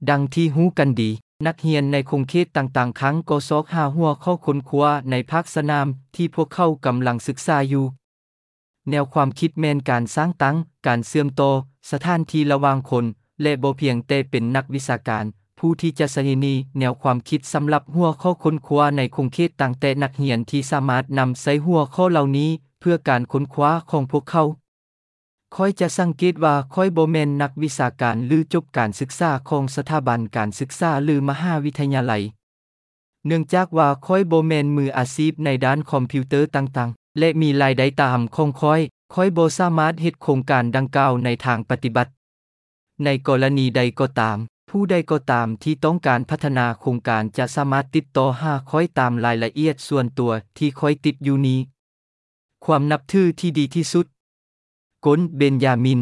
ດັ່ງທີ່ຮູ້ກັນດີ, ນັກຮຽນໃນຂົງເຂດຕ່າງໆຄັ້ງກໍຊອກຫາຫົວຂໍ້ຄົ້ນຄວ້າໃນພາກສະໜາມທີ່ພວກເຂົາກຳລັງສຶກສາຢູ່. ແນວຄວາມຄິດແມ່ນການສ້າງຕັ້ງການເຊື່ອມຕໍ່ສະຖານທີ່ລະຫວ່າງຄົນ ແລະ ບໍ່ພຽງແຕ່ເປັນນັກວິຊາການຜູ້ທີ່ຈະໃຊ້ແນວຄວາມຄິດສຳລັບຫົວຂໍ້ຄົ້ນຄວ້າໃນຂົງເຂດຕ່າງແຕ່ນັກຮຽນທີ່ສາມາດນຳໃຊ້ຫົວຂໍ້ເຫຼົ່ານີ້ເພື່ອການຄົ້ນຄວ້າຂອງພວກເຂົາ. ຂ້ອຍຈະສັງເກດວ່າຂ້ອຍບໍ່ແມ່ນນັກວິຊາການ ຫຼື ຈົບການສຶກສາຂອງສະຖາບັນການສຶກສາ ຫຼື ມະຫາວິທະຍາໄລ. ເນື່ອງຈາກວ່າຂ້ອຍບໍ່ແມ່ນມືອາຊີບໃນດ້ານຄອມພິວເຕີຕ່າງໆ ແລະ ມີລາຍໄດ້ຕາມຂອງຂ້ອຍ, ຂ້ອຍບໍ່ສາມາດເຮັດໂຄງການດັ່ງກ່າວໃນທາງປະຕິບັດ. ໃນກໍລະນີໃດກໍຕາມ, ຜູ້ໃດກໍຕາມທີ່ຕ້ອງການພັດທະນາໂຄງການຈະສາມາດຕິດຕໍ່ຫາຂ້ອຍຕາມລາຍລະອຽດສ່ວນຕົວທີ່ຂ້ອຍຕິດຢູ່ນີ້. ຄວາມນັບຖືທີ່ດີທີ່ສຸດ. ກົນ ເບັນຢາມິນ.